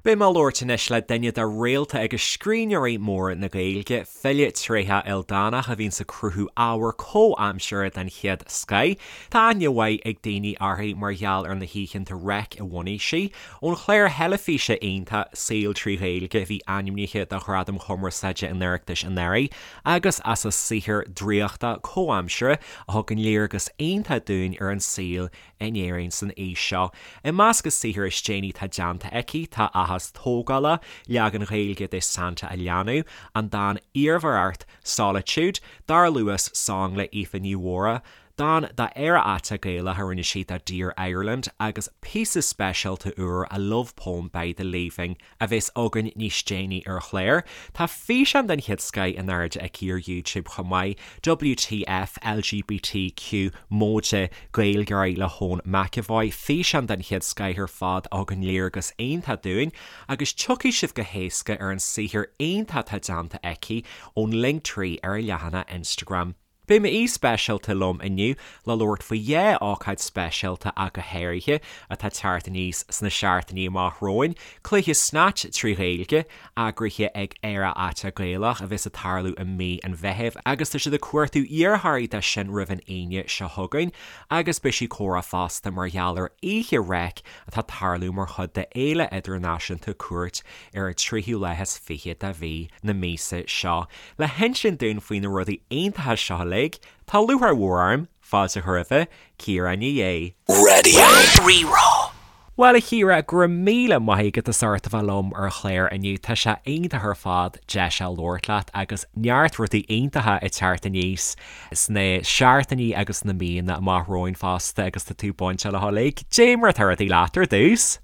Beidh mé ag labhairt anois le duine de réalta agus scríbhneoirí móra na Gaeilge, file tréitheach ildánach a bhíonns ag cruthú ábhar comhaimseartha den chéad scoith. Tá aithne mhaith ag daoine uirthi mar gheall ar na hoícheanta Reic a bhunaigh sí, ón chlár theilifíse iontach Saol 3 Ghaeilge a bhí ainmnithe do Ghradaim Chumarsáide an Oireachtais anuraidh, agus as a saothar draíochta comhaimseartha a thugann léargas iontach dúinn ar an saol in Éirinn san aois seo. I measc a saothar is déanaí atá déanta aici tá Áthas Tógála, leagan Gaeilge de Santa a Leanbh, an dán Iarmhaireacht, Solitude, Dar Luas Song le Aoife Ní Mhórdha, dán d'Éire Aiteach Gaelach a rinne sí do Dear Ireland agus píosa speisialta úr A Love Poem by The Leaving. a bheas againn níos déanaí ar an chlár. Tá físeán den chéad scoith in airde aici ar YouTube chomh maith, WTF LGBTQ móide Gaeilgeoirí le hEoin McEvoy, físeán den chéad scoith ar fad a thugann léargas iontach dúinn agus tiocfaidh sibh go héasca ar an saothar iontach atá déanta aici ón Linktree ar a leathanach Instagram. Beidh m'aoi speisialta liom inniu le labhairt faoi dhá ócáid speisialta ach go háirithe, atá ag teacht aníos sna seachtainí amach romhainn, Cluiche Snatch 3 Ghaeilge, eagraithe ag Éire Aiteach Gaelach, a bheas ag tarlú i mí an Mheithimh agus tá siad ag cuartú iarrthóirí dó sin roimh an Aoine seo chugainn, agus beidh sí ag comhrá fosta mar gheall ar Oíche Reic atá ag tarlú mar chuid de Fhéile Idirnáisiúnta Cúirt ar an tríú lá is fiche de mhí na míosa seo. Le hinsint dúinn faoi na rudaí iontacha seo uilig, tá lúcháir mhór orm fáilte a chur roimhe, Ciara Ní É. Raidió Rí-Rá. Bhuel, a Chiara, go raibh míle maith agat as ucht a bheith liom ar an chlár inniu. Tá sé iontach ar fad deis a labhairt leat agus neart rudaí iontacha ag teacht aníos sna seachtainí agus sna míonna amach romhainn fosta agus tá tú bainteach leo uilig. Dé mar atá rudaí leat ar dtús?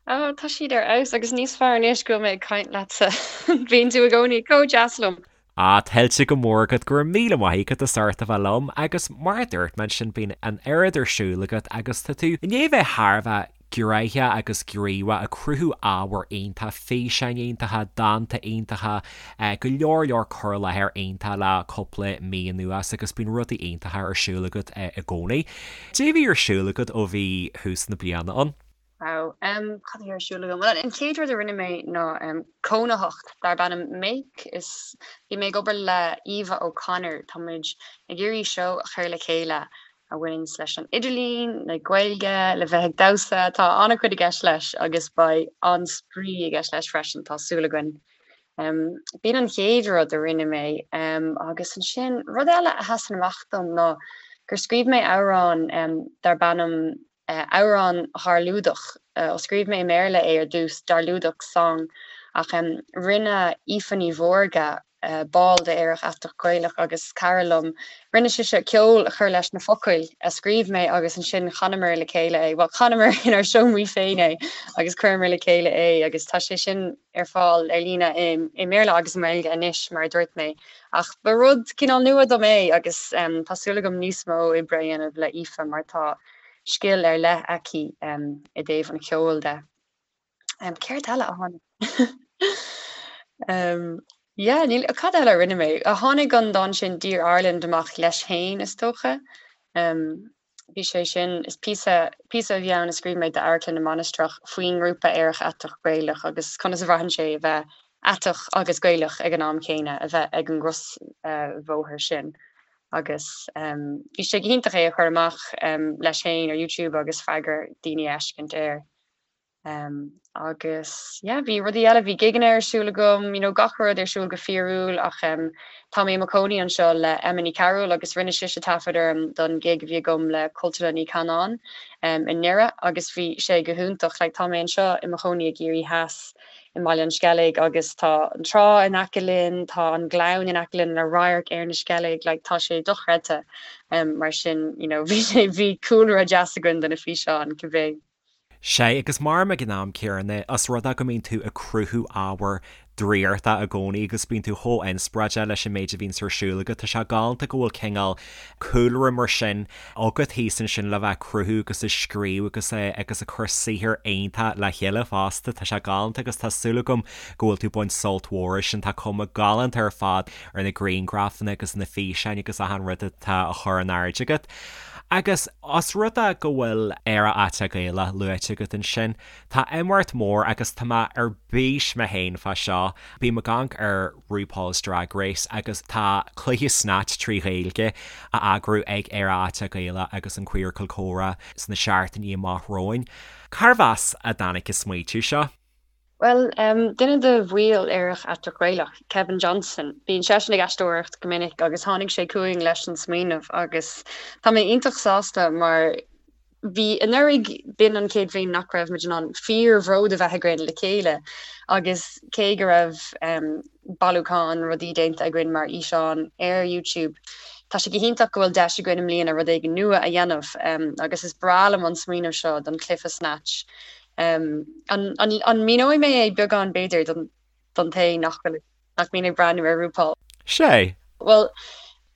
Ó, tá siad ar fheabhas agus níos fearr anois go bhfuil mé ag caint leatsa. Bíonn tú i gcónaí chomh deas liom. Ah, tuillte go mór agat, go raibh míle maith agat as ucht a bheith liom agus mar a dúirt mé ansin bíonn an oiread ar siúl agat agus tá tú i ndiaidh a bheith thar a bheith gnoitheach agus gníomhach ag cruthú ábhar iontach, físeáin iontacha, dánta iontacha, go leor leor cur i láthair iontach le cúpla mí anuas agus bíonn rudaí iontacha ar siúl agat i gcónaí. Cad é a bhí ar siúl agat ó bhí thús na bliana ann? Wow. Cad a bhí ar siúl agam? Bhuel, an chéad rud a rinne mé ná cónaitheacht darb ainm Make. Is bhí mé ag obair le Eva O'Connor. Tá muid ag iarraidh seó a chur le chéile a bhaineanns leis an idirlíon, le Gaeilge, le bheith ag damhsa. Tá an-chuid i gceist leis agus beidh an-spraoi i gceist leis freisin, tá súil againn. B'in an chéad rud a rinne mé. Agus ansin, rud eile a sheasann amach dom ná gur scríobh mé amhrán darb ainm Amhrán Dharlúdach. Scríobh mé i mBéarla é ar dtús, Darlúdach Song, ach rinne Aoife Ní Mhórdha, ball de Aerach Aiteach Gaelach agus cara liom, rinne sise ceol a chur leis na focail a scríobh mé agus ansin chanamar le chéile é, bhuel, chanamar inár seomraí féin é agus chuireamar le chéile é agus tá sé sin ar fáil ar líne i mBéarla agus i nGaeilge anois, mar a dúirt mé. Ach ba rud cineál nua dom é agus tá súil agam níos mó oibre a dhéanamh le Aoife mar tá scil ar leith aici i dtaobh an cheoil de. Céard eile a tháinig? Yeah, níl, cad eile a rinne mé? Tháinig an dán sin Dear Ireland amach leis féin, is dócha. Bhí sé sin, is píosa, píosa a bhí ann a scríobh mé d'Amharclann na Mainistreach faoin ngrúpa Aerach Aiteach Gaelach agus conas a bhraitheann sé a bheith aiteach agus Gaelach ag an am céanna, a bheith ag an gcrosbhóthar sin. Agus bhí sé go hiontach é a chur amach leis féin ar YouTube agus freagra daoine a fheiscint air. Agus yeah, bhí rudaí eile, bhí gigeanna ar siúl agam, you know, gach rud ar siúl go fíorúil ach tá mé i mo chónaí anseo le Emma Ní Chearúil agus rinne sise taifead orm don gig a bhí agam le Cultúrlann Uí Chanáin i nDoire agus bhí sé go hiontach. Like tá mé anseo i mo chónaí i gCiarraí Theas i mBaile an Sceilg agus tá an trá in aice linn, tá an gleann in aice linn le radharc ar na Sceilg, like tá sé dochreidte. Mar sin, you know, bhí sé, bhí cúlra deas againn do na físeáin, cibé. Sea, agus maram ag an am céanna, os rud é go mbíonn tú ag cruthú ábhar draíochta i gcónaí agus bíonn tú chomh inspioráideach leis an méid a bhíonns ar siúl agat, tá sé galánta go bhfuil cineál cúlra mar sin agat thíos ansin le bheith ag cruthú agus ag scríobh agus agus ag cur saothar iontach le chéile fosta. Tá sé galánta agus tá súil agam go bhfuil tú ag baint sult mhór as sin. Tá cuma galánta ar fad ar na grianghrafanna agus na físeáin agus achan rud atá á chur in airde agat. Agus os rud é go bhfuil Aerach Aiteach Gaelach luaite agat ansin, tá imeacht mór agus tá mé ar bís mé féin fá seo. Bím ag amharc ar RuPaul's Drag Race agus tá cluiche Snatch trí Ghaeilge á eagrú ag Aerach Aiteach Gaelach agus an Queercal Comhrá sna seachtainí amach romhainn. Cárbh as a dtáinig an smaoitiú seo? Bhuel, duine de bhaill Aerach Aiteach Gaelach, Kevin Johnson, bíonn seisean ag aisteoireacht go minic agus tháinig sé chugainn leis an smaoineamh agus tá mé iontach sásta mar bhí anuraidh, b'in an chéad bhliain nach raibh muid in ann fíor-bhród a bheith againn le chéile agus cé go raibh bailiúchán rudaí déanta againn mar fhíseán ar YouTube, tá sé go hiontach go bhfuil deis againn i mbliana rud éigin nua a dhéanamh agus is breá liom an smaoineamh seo don chluiche Snatch. An míneoidh mé é beagán b'fhéidir don té nach bhfuil, nach mbíonn ag breathnú ar RuPaul? Sea. Bhuel,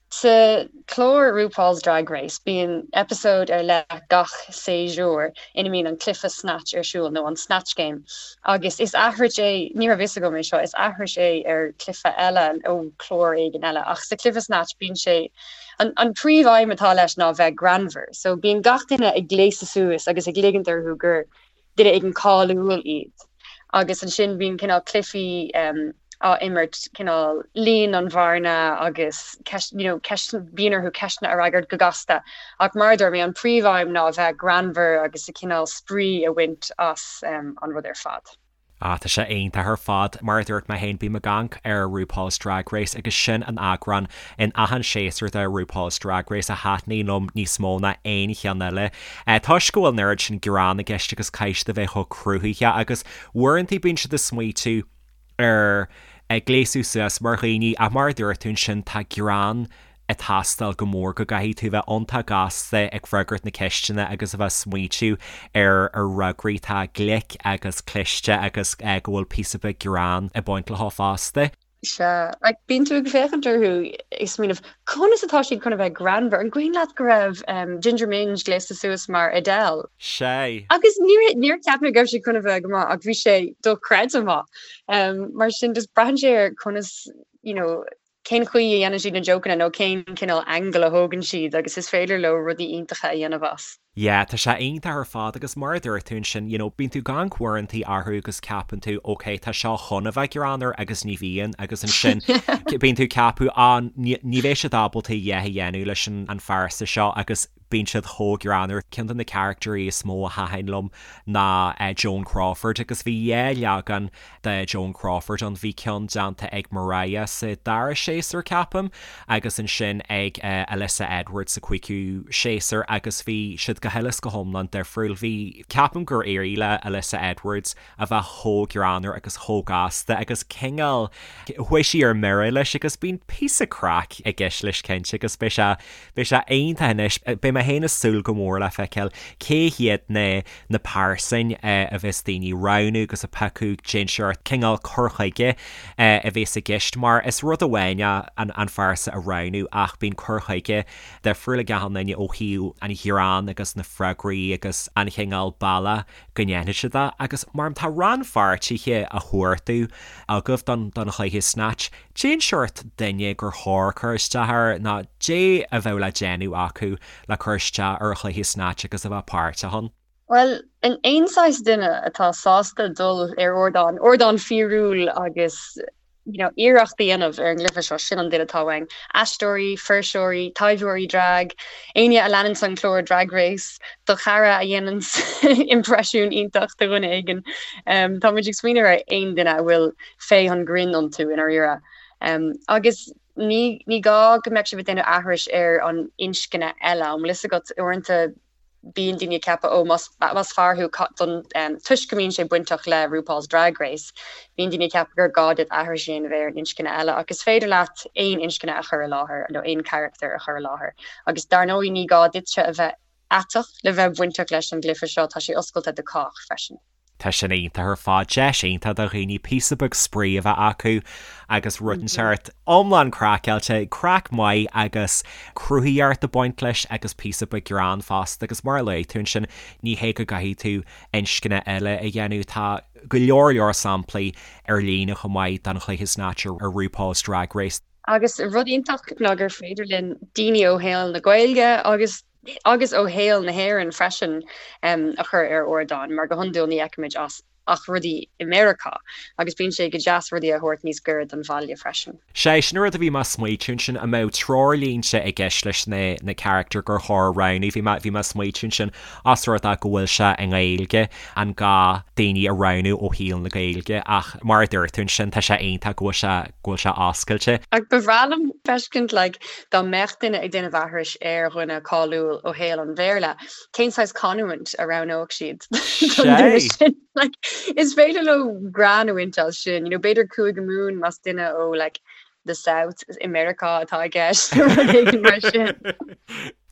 sa chlár RuPaul's Drag Race bíonn eipeasóid ar leith gach séasúr ina mbíonn an cluiche Snatch ar siúl, nó an Snatch Game, agus is aithris é, ní raibh fhios agam é seo, is aithris é ar chluiche eile ó chlár éigin eile, ach sa chluiche Snatch bíonn sé, An príomh-aidhm atá leis ná bheith greannmhar, so bíonn gach duine ag gléasadh suas agus ag ligint orthu gur duine éigin cáiliúil iad. Agus ansin bíonn cineál cluichí á imirt, cineál líon an bhearna agus ceist, you know, ceist, bíonn orthu ceisteanna a fhreagairt go gasta. Ach mar a dúirt mé, an príomh-aidhm ná a bheith greannmhar agus a cineál spraoi a bhaint as an rud ar fad. Ah, tá sé iontach ar fad. Mar a dúirt mé féin, bím ag amharc ar RuPaul's Drag Race agus sin an eagrán in achan séasúr de RuPaul's Drag Race a thaitníonn liom níos mó ná aon cheann eile. Toisc go bhfuil an oiread sin greann i gceist agus caithfidh siad a bheith chomh cruthaitheach agus uaireanta bíonn siad ag smaoitiú ar gléasadh suas mar dhaoine ach mar a dúirt tú ansin tá greann ag teastáil go mór go gcaithfidh tú bheith iontach gasta ag freagairt na ceisteanna agus a bheith smaoitiú ar ar fhreagraí atá glic agus cliste agus go bhfuil píosa beag greann ag baint leo fosta. Sea, like bíonn tú ag féachaint orthu ag smaoineamh conas atá siad chun a bheith greannmhar? An cuimhin leat go raibh Ginger Minj gléasta suas mar Adele? Sea. Agus níor níor cheap mé go raibh sé chun a bheith go maith ach bhí sé dochreidte maith. Mar sin just braitheann sé ar conas you know cén chaoi a dhéanann siad na jokeanna nó cén cineál angle a thógann siad agus is féidir leo rudaí iontacha a dhéanamh as. Yeah, tá sé iontach ar fad agus mar a dúirt tú ansin, you know, bíonn tú ag amharc uaireantaí orthu agus ceapann tú, ok, tá seo chun a bheith greannmhar agus ní bhíonn agus ansin bíonn tú ag ceapadh, ah, ní bheidh siad ábalta a dhath a dhéanamh leis an phearsa seo agus bíonn siad chomh greannmhar. Ceann de na caractairí is mó a thaitin liom ná Joan Crawford agus bhí dhá leagan de Joan Crawford ann. Bhí ceann déanta ag Mariah sa dara séasúr, ceapaim, agus ansin ag Alyssa Edwards sa cúigiú séasúr agus bhí siad go huile is go hiomlán difriúil. Bhí, ceapaim gur éirigh le Alyssa Edwards a bheith chomh greannmhar agus chomh gasta agus cineál, chuaigh sí ar mire leis agus bíonn píosa craic i gceist leis cinnte agus beidh sé, beidh sé iontach anois. Beidh mé féin ag súil go mór le feiceáil cé hiad na, na pearsain a bheas daoine ag roghnú agus ag piocadh cén seort cineál cur chuige a bheas i gceist mar is rud amháin é an, an phearsa a roghnú ach bíonn cur chuige difriúil ag achan duine ó thaobh an ghreann agus na freagraí agus an chineál bealach go ndéanfaidh siad é agus mar tá rannpháirtithe á chuartú agaibh don don chluiche Snatch, cén seort duine gur chóir cur isteach air nó cad é a bheadh le déanamh acu le cur isteach ar chluiche Snatch agus a bheith páirteach ann? Bhuel, aon saghas duine atá sásta dul ar ardán, ardán fíorúil agus you know, iarracht a dhéanamh ar an gcluiche seo, sin an duine atá uainn. Aisteoirí, fuirseoirí, taibheoirí drag, éinne a leananns an clár Drag Race, do chara a dhéananns impreisiún iontach de dhuine éigin. Um, tá muid ag smaoineamh ar aon duine a bhfuil féith an ghrinn iontu i ndáiríre. Um, agus ní, ní gá go mbeadh sibh ag déanamh aithris ar an inscne eile, an bhfuil fhios agat uaireanta bíonn daoine ag ceapadh, ó, más, más fear thú, don, toisc go mbíonn sé bainteach le RuPaul's Drag Race, bíonn daoine ag ceapadh gur gá duit aithris a dhéanamh ar an inscne eile, ach is féidir leat aon inscne a chur i láthair, nó aon charachtar a chur i láthair. Agus dar ndóigh ní gá duitse a bheith aiteach le bheith bainteach leis an gcluiche seo, tá sé oscailte do chách freisin. Tá sin iontach ar fad, deis iontach do dhaoine píosa beag spraoi a bheith acu agus rud inteacht iomlán craiceáilte, craic maith agus cruthaitheacht ag baint leis agus píosa beag greann fosta agus mar a luaigh tú ansin, ní hé go gcaithfidh tú inscne eile a dhéanamh, tá go leor leor samplaí ar líne chomh maith den chluiche Snatch ar RuPaul's Drag Race. Agus rud iontach ná gur féidir linn daoine ó shaol na Gaeilge agus. agus ó shaol na hÉireann freisin a chur ar ardán mar go hiondúil ní fheicimid as ach rudaí i Meiriceá agus bíonn sé go deas rudaí a thabhairt níos gaire don bhaile freisin. Sé sin an rud a bhí mé ag smaoitiú ansin, an mbeadh treoirlínte i gceist leis na na carachtair gur chóir a roghnú, bhí mé bhí mé ag smaoitiú ansin os rud é go bhfuil sé i nGaeilge, an gá daoine a roghnú ó shaol na Gaeilge ach mar a dúirt tú ansin tá sé iontach go bhfuil sé go bhfuil sé oscailte. Ach ba bhreá liom feiscint like dá mbeadh duine ag déanamh aithris ar dhuine cáiliúil ó shaol an Bhéarla, cén saghas canúint a roghnódh siad don duine sin? Like, is féidir leo greann a bhaint as sin, you know, b'fhéidir Cúige Mumhan más duine ó like, the South i Meiriceá atá i gceist nó rud éigin mar sin.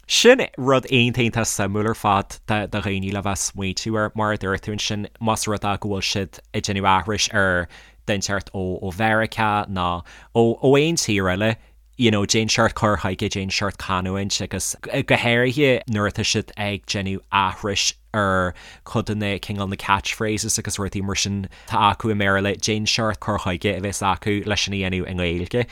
Sin rud iontach iontach suimiúil ar fad do dhaoine le bheith ag smaoitiú air, mar a dúirt tú ansin, más rud é go bhfuil siad ag déanamh aithris ar dhuine inteacht ó Mheiriceá nó ó aon tír eile, you know cén seort cur chuige, cén seort canúint agus go háirithe nuair atá siad ag déanamh aithris ar chuid de na cineál na catchphrases agus rudaí mar sin atá acu i mBéarla, cén seort cur chuige a bheas acu leis sin a dhéanamh i nGaeilge.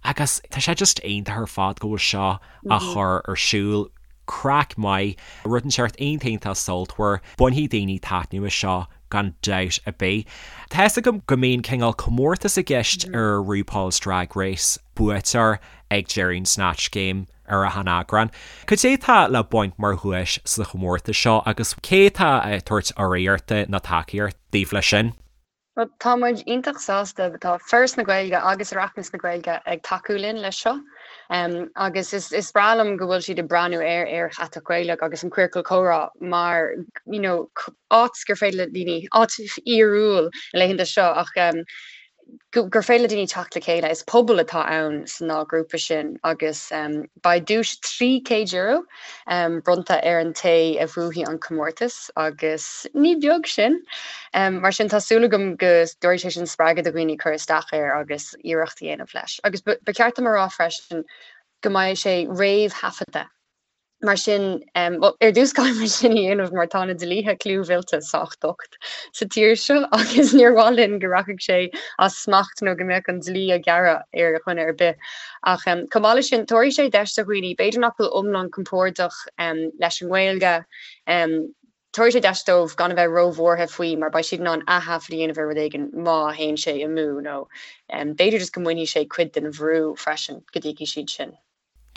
Agus tá sé just iontach ar fad go bhfuil seo á chur ar siúl. Craic maith, rud inteacht iontach iontach sultmhar, bainfidh daoine taitneamh as seo gan dabht ar bith. Tá fhios agam go mbíonn cineál comórtas i gceist ar RuPaul's Drag Race, buaiteoir ag deireadh an Snatch Game ar achan eagrán. Cad é atá le baint mar dhuais sa chomórtas seo agus cé atá ag tabhairt urraíochta nó tacaíocht daoibh leis sin? Bhuel, tá muid iontach sásta, tá Foras na Gaeilge agus Oireachtas na Gaeilge ag tacú linn leis seo agus is breá liom go bhfuil siad ag breathnú ar Aer Chatach Gaelach agus an Queercal Comhrá mar you know áit gur féidir le daoine, áit fhíorúil na laethanta seo ach gur féidir le daoine teacht le chéile. Is pobal atá ann san dá ghrúpa sin agus beidh duais €300 bronnta ar an té a bhuafaidh an comórtas agus ní beag sin. Mar sin tá súil agam go dtabharfaidh sé sin spreagadh do dhaoine cur isteach air agus iarracht a dhéanamh leis. Agus ba cheart dom a rá freisin go mbeidh sé réamhthaifeadta. Mar sin, bhuel, ar dtús caithfidh muid sin a dhéanamh mar tá na dlíthe clúmhillte sách docht sa tír seo agus níor mhaith linn go rachadh sé as smacht nó go mbeadh an dlí á ghearradh ar dhuine ar bith. Ach chomh maith leis sin, tabharfaidh sé deis do dhaoine, b'fhéidir nach bhfuil iomlán compordach leis an nGaeilge, tabharfaidh sé deis dóibh gan a bheith róbhuartha faoi mar beidh siad in ann ath-thaifead a dhéanamh ar rud éigin má théann sé amú nó b'fhéidir just go mbainfidh sé cuid den bhrú freisin go dtuigfidh siad sin.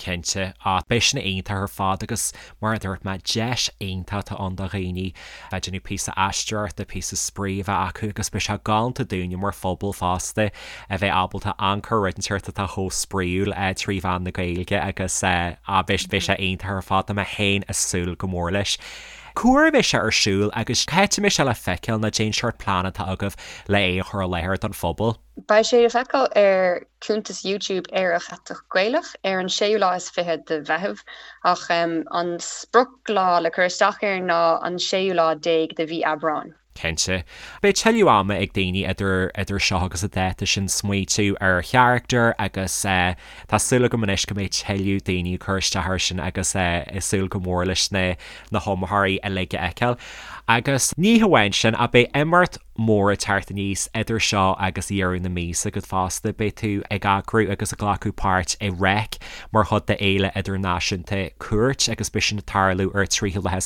Cinnte, ach beidh sin iontach ar fad agus mar a dúirt mé, deis iontach atá ann do dhaoine bheith ag déanamh píosa aisteoireachta, píosa spraoi a bheith acu agus beidh sé galánta dúinne mar phobal fosta a bheith ábalta amharc ar rud inteacht atá chomh spraíúil trí mheán na Gaeilge agus beidh sé iontach ar fad, tá mé féin ag súil go mór leis. Cá huair a bheidh sé ar siúl agus cá háit a mbeidh sé le feiceáil nó cén seort plean atá agaibh le é a chur i láthair don phobal? Beidh sé le feiceáil ar chuntas YouTube Aerach Aiteach Gaelach ar an séú lá is fiche de Mheitheamh, ach an sprioclá le cur isteach air ná an séú lá déag de mhí Aibreáin. Cinnte. Beidh tuilleadh ama ag daoine idir idir seo agus an dáta sin smaoitiú ar charachtar agus tá súil agam anois go mbeidh tuilleadh daoine ag cur isteach air sin agus ag súil go mór leis na na hiomaitheoirí uilig a fheiceáil. Agus ní hamháin sin ach beidh imeacht mór ag teacht aníos idir seo agus deireadh na míosa agat fosta. Beidh tú ag eagrú agus ag glacadh páirt i Reic mar chuid de Fhéile Idirnáisiúnta Cúirt agus beidh sin ag tarlú ar 23ú lá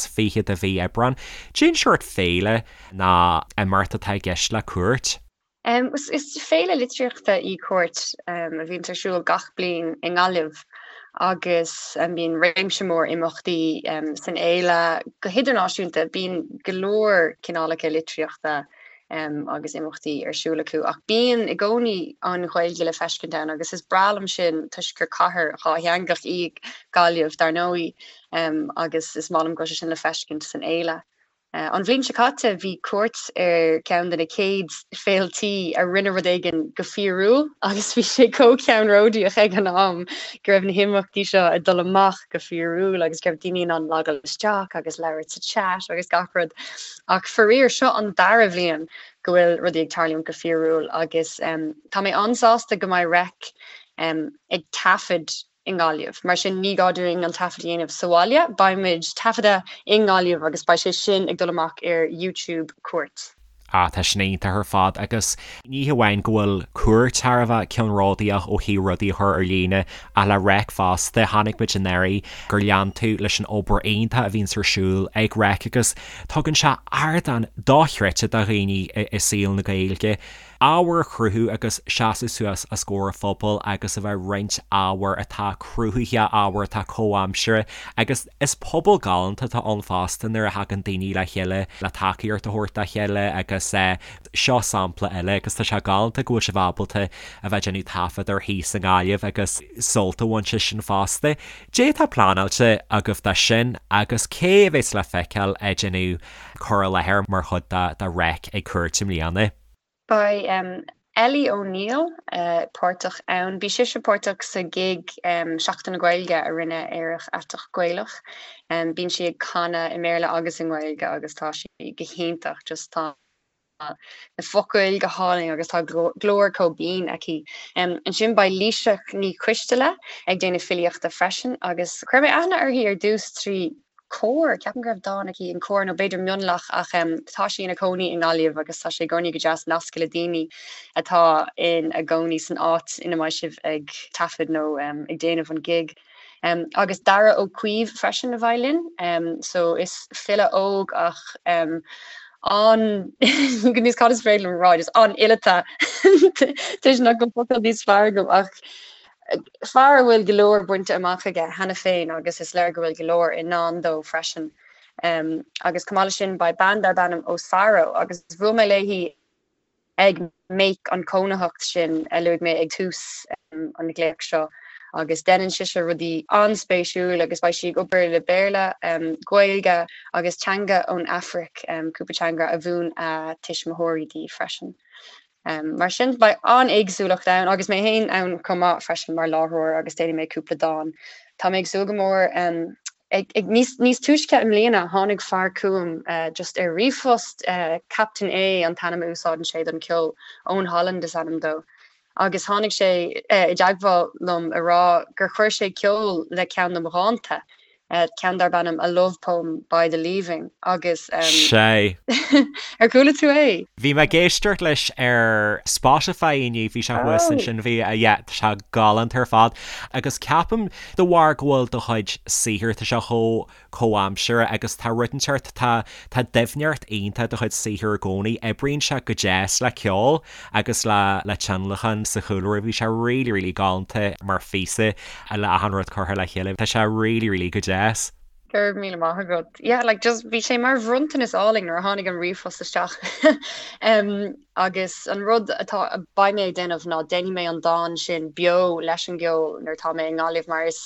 de mhí Aibreán. Cén seort féile nó imeacht atá i gceist le Cúirt? Is féile litríochta í Cúirt a bhíonns ar siúl gach bliain i nGaillimh agus bíonn réimse mór imeachtaí san fhéile go hidirnáisiúnta. Bíonn go leor cineálacha litríochta agus imeachtaí ar siúl acu ach bíonn i gcónaí an Ghaeilge le feiscint ann agus is breá liom sin toisc gur cathair dhátheangach í Gaillimh dar ndóigh agus is maith liom go bhfuil sé sin le feiscint san fhéile. An bhliain seo caite, bhí Cúirt ar cheann de na chéad féiltí a rinne rud éigin go fíorúil agus bhí sé chomh ceannródaíoch ag an am go raibh na himeachtaí seo ag dul amach go fíorúil agus go raibh daoine in ann logáil isteach agus labhairt sa chat agus gach rud. Ach faraor, seo an dara bhliain go bhfuil rudaí ag tarlúint go fíorúil agus tá mé an-sásta go mbeidh Reic ag taifead i nGaillimh. Mar sin ní gá dúinn an taifead a dhéanamh sa bhaile, beidh muid taifeadta i nGaillimh agus beidh sé sin ag dul amach ar YouTube Cúirt. Ah, tá sin iontach ar fad agus ní hamháin go bhfuil Cúirt thar a bheith ceannródaíoch ó thaobh rudaí a chur ar líne ach le Reic fosta, chonaic muid anuraidh gur lean tú leis an obair iontach a bhíonns ar siúl ag Reic agus tugann sé ardán dochreidte do dhaoine i saol na Gaeilge. ábhar a chruthú agus seasamh suas os comhair an phobail agus a bheith ag roinnt ábhar atá cruthaitheach, ábhar atá comhaimseartha agus is pobal galánta atá ann fosta nuair a thagann daoine le chéile le tacaíocht a thabhairt dá chéile agus seo sampla eile agus tá sé galánta go bhfuil sibh ábalta a bheith ag déanamh taifead air thíos i nGaillimh agus sult a bhaint as sin fosta. Cad é atá pleanáilte agaibh dó sin agus cé a bheas le feiceáil ag déanamh cur i láthair mar chuid de Reic ag Cúirt i mbliana? Beidh Ellie O'Neill páirteach ann. Bhí sise páirteach sa ghig Seachtain na Gaeilge a rinne Aerach Aiteach Gaelach. Bíonn sí ag canadh i mBéarla agus i nGaeilge agus tá sí go hiontach. Just tá na focail go hálainn agus tá glór chomh binn aici. Ansin beidh Laoighseach Ní Choisteala ag déanamh filíochta freisin agus chuir mé aithne uirthi ar dtús trí Comhar, ceapaim go raibh dán aici in Comhar nó b'fhéidir Mionlach ach tá sí ina cónaí i nGaillimh agus tá sé i gcónaí go deas nascadh le daoine atá ina gcónaí san áit ina mbeidh sibh ag taifead nó ag déanamh an gig. Agus Dara Ó Caoimh freisin a bheidh linn so is file óg ach an níos cad is féidir liom a rá just an-fhileata toisc nach bhfuil focal níos fearr agam ach Fear a bhfuil go leor bainte amach aige cheana féin agus is léir go bhfuil go leor i ndán dó freisin. Agus chomh maith leis sin beidh bean darb ainm Osaro agus bhuail mé léi ag Make an cónaitheacht sin a luaigh mé ag tús an ghlaoch seo agus deineann sise rudaí an-spéisiúil agus beidh sí ag obair le Béarla, Gaeilge agus teanga ón Afraic, cúpla teanga a mhúin a tuismitheoirí di freisin. Mar sin, beidh an-éagsúlacht ann, agus mé féin ann chomh maith freisin mar láithreoir agus déanfaidh mé cúpla dán. Tá mé ag súil go mór. Ag, ag, níos, níos túisce i mbliana, tháinig fear chugam just ar ríomhphost, Captain A an t-ainm a úsáideann sé don cheol, Owen Holland is ainm dó, agus tháinig sé i dteagmháil liom a rá gur chuir sé ceol le ceann de mo dhánta. ceann darb ainm A Love Poem by The Leaving agus. Sea. Ar chuala tú é? Bhí mé ag éisteacht leis ar Spotify inniu, bhí sé thuas ansin, bhí, yeah, tá sé galánta ar fad. Agus ceapaim, de bharr go bhfuil do chuid saothair, tá sé chomh comhaimseartha agus tá rud inteacht, tá, tá doimhneacht iontach i do chuid saothair i gcónaí, oibríonn sé go deas le ceol agus le, le tionlacan sa chúlra, bhí sé really, really galánta mar phíosa. le achan rud curtha le chéile. Tá sé really really go deas. Go raibh míle maith agat. Yeah, like just bhí sé mar bhronntanas álainn nuair a tháinig an ríomhphost isteach. um, agus an rud atá beidh mé ag déanamh ná déanfaidh mé an dán sin beo leis an gceol nuair atá mé i nGaillimh mar is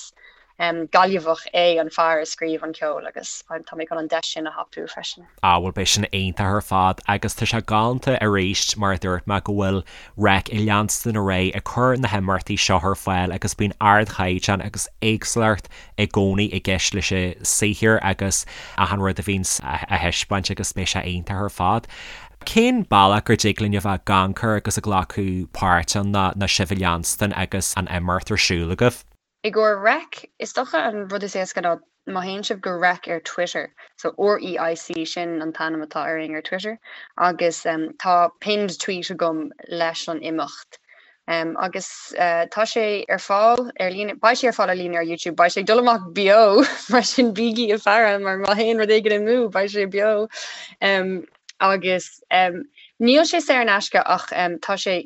um, Gaillimheach é an fear a scríobh an ceol agus tá mé chun an deis sin a thapú freisin. Ah bhuel beidh sin iontach ar fad agus tá sé galánta arís mar a dúirt mé go bhfuil Reic ag leanstan ar aghaidh ag cur na himeachtaí seo ar fáil agus bíonn ardchaighdeán agus éagsúlacht i gcónaí i gceist leis an saothar agus achan rud a bhíonns á thaispeáint agus beidh sé iontach ar fad. Cén bealach gur dtig linn a bheith ag amharc air agus ag glacadh páirt ann ná sibh a leanstan agus an imeacht ar siúl agaibh? I gcomhair Reic, is dócha an rud is éasca ná má théann sibh go Reic ar Twitter, so REIC, sin an t-ainm atá orainn ar Twitter, agus tá pinned tweet agam leis an imeacht. Agus tá sé ar fáil ar líne, beidh sé ar fáil ar líne ar YouTube, beidh sé ag dul amach beo, mar sin bígí ag faire mar má théann rud éigin amú beidh sé beo. Agus níl sé saor in aisce ach tá sé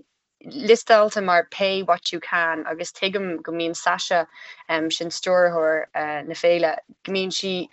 liostáilte mar pay what you can agus tuigim go mbíonn Sasha, sin stiúrthóir na féile, go mbíonn sí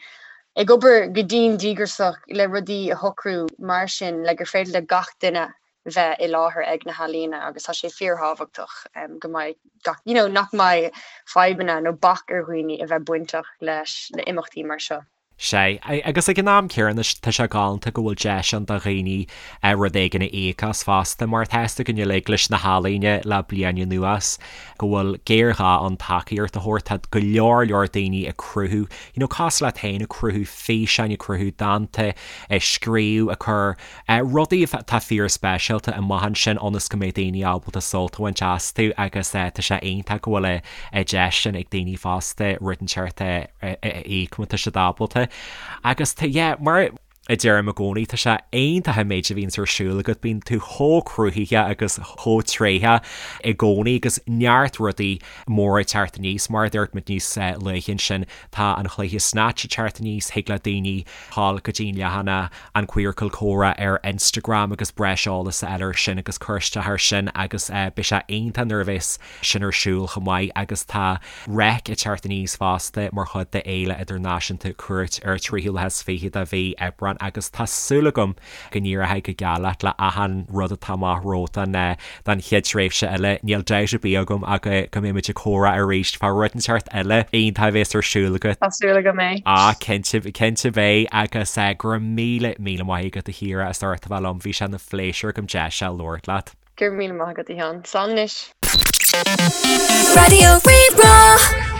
ag obair go dian díograiseach le rudaí a shocrú mar sin le gur féidir le gach duine bheith i láthair ag na healaíona agus tá sé fíorthábhachtach go mbeidh gach, you know, nach mbeidh fadhbanna nó bac ar dhaoine a bheith bainteach leis na imeachtaí mar seo. Sea, agus ag an am céanna tá sé galánta go bhfuil deis ann do dhaoine rud éigin a íoc as fosta, mar tá a fhios againn uilig leis na healaíona le bliain anuas go bhfuil géarghá ann tacaíocht a thabhairt. Tá go leor leor daoine ag cruthú, you know, cosúil leat féin, ag cruthú físeáin, ag cruthú dánta, ag scríobh, ag cur Rudaí atá fíorspeisialta amach ansin ionas go mbeidh daoine ábalta sult a bhaint astu agus tá sé iontach go bhfuil an deis sin ag daoine fosta rud inteacht a íoc má tá siad ábalta. Agus tá, yeah, mar. a deirim i gcónaí, tá sé iontach an méid a bhíonns ar siúl agat, bíonn tú chomh cruthaithe agus chomh tréitheach i gcónaí agus neart rudaí móra ag teacht aníos, mar a dúirt muid níos luaithe ansin, tá an chluiche Snatch ag teacht aníos, thig le daoine dhul go dtí an leathanach An Queercal Comhrá ar Instagram agus breis eolas a fháil ar sin agus cur isteach ar sin agus beidh sé iontach nuair a bheas sin ar siúl chomh maith agus tá Reic ag teacht aníos fosta mar chuid de Fhéile Idirnáisiúnta Cúirt ar an tríú lá is fiche de mhí Aibreán agus tá súil agam go n-éireoidh go geal leat le achan rud atá amach romhat don don chéad tréimhse eile. Níl dabht ar bith agam ach go mbeidh muid ag comhrá arís fá rud inteacht eile iontach a bheas ar siúl agat. Tá súil agam é. Ah, cinnte, cinnte beidh agus go raibh míle, míle maith agat a Chiara as ucht a bheith liom, bhí sé ina phléisiúr agam deis a labhairt leat. Go raibh míle maith agat a Sheáin. Slán anois. Raidió Rí-Rá.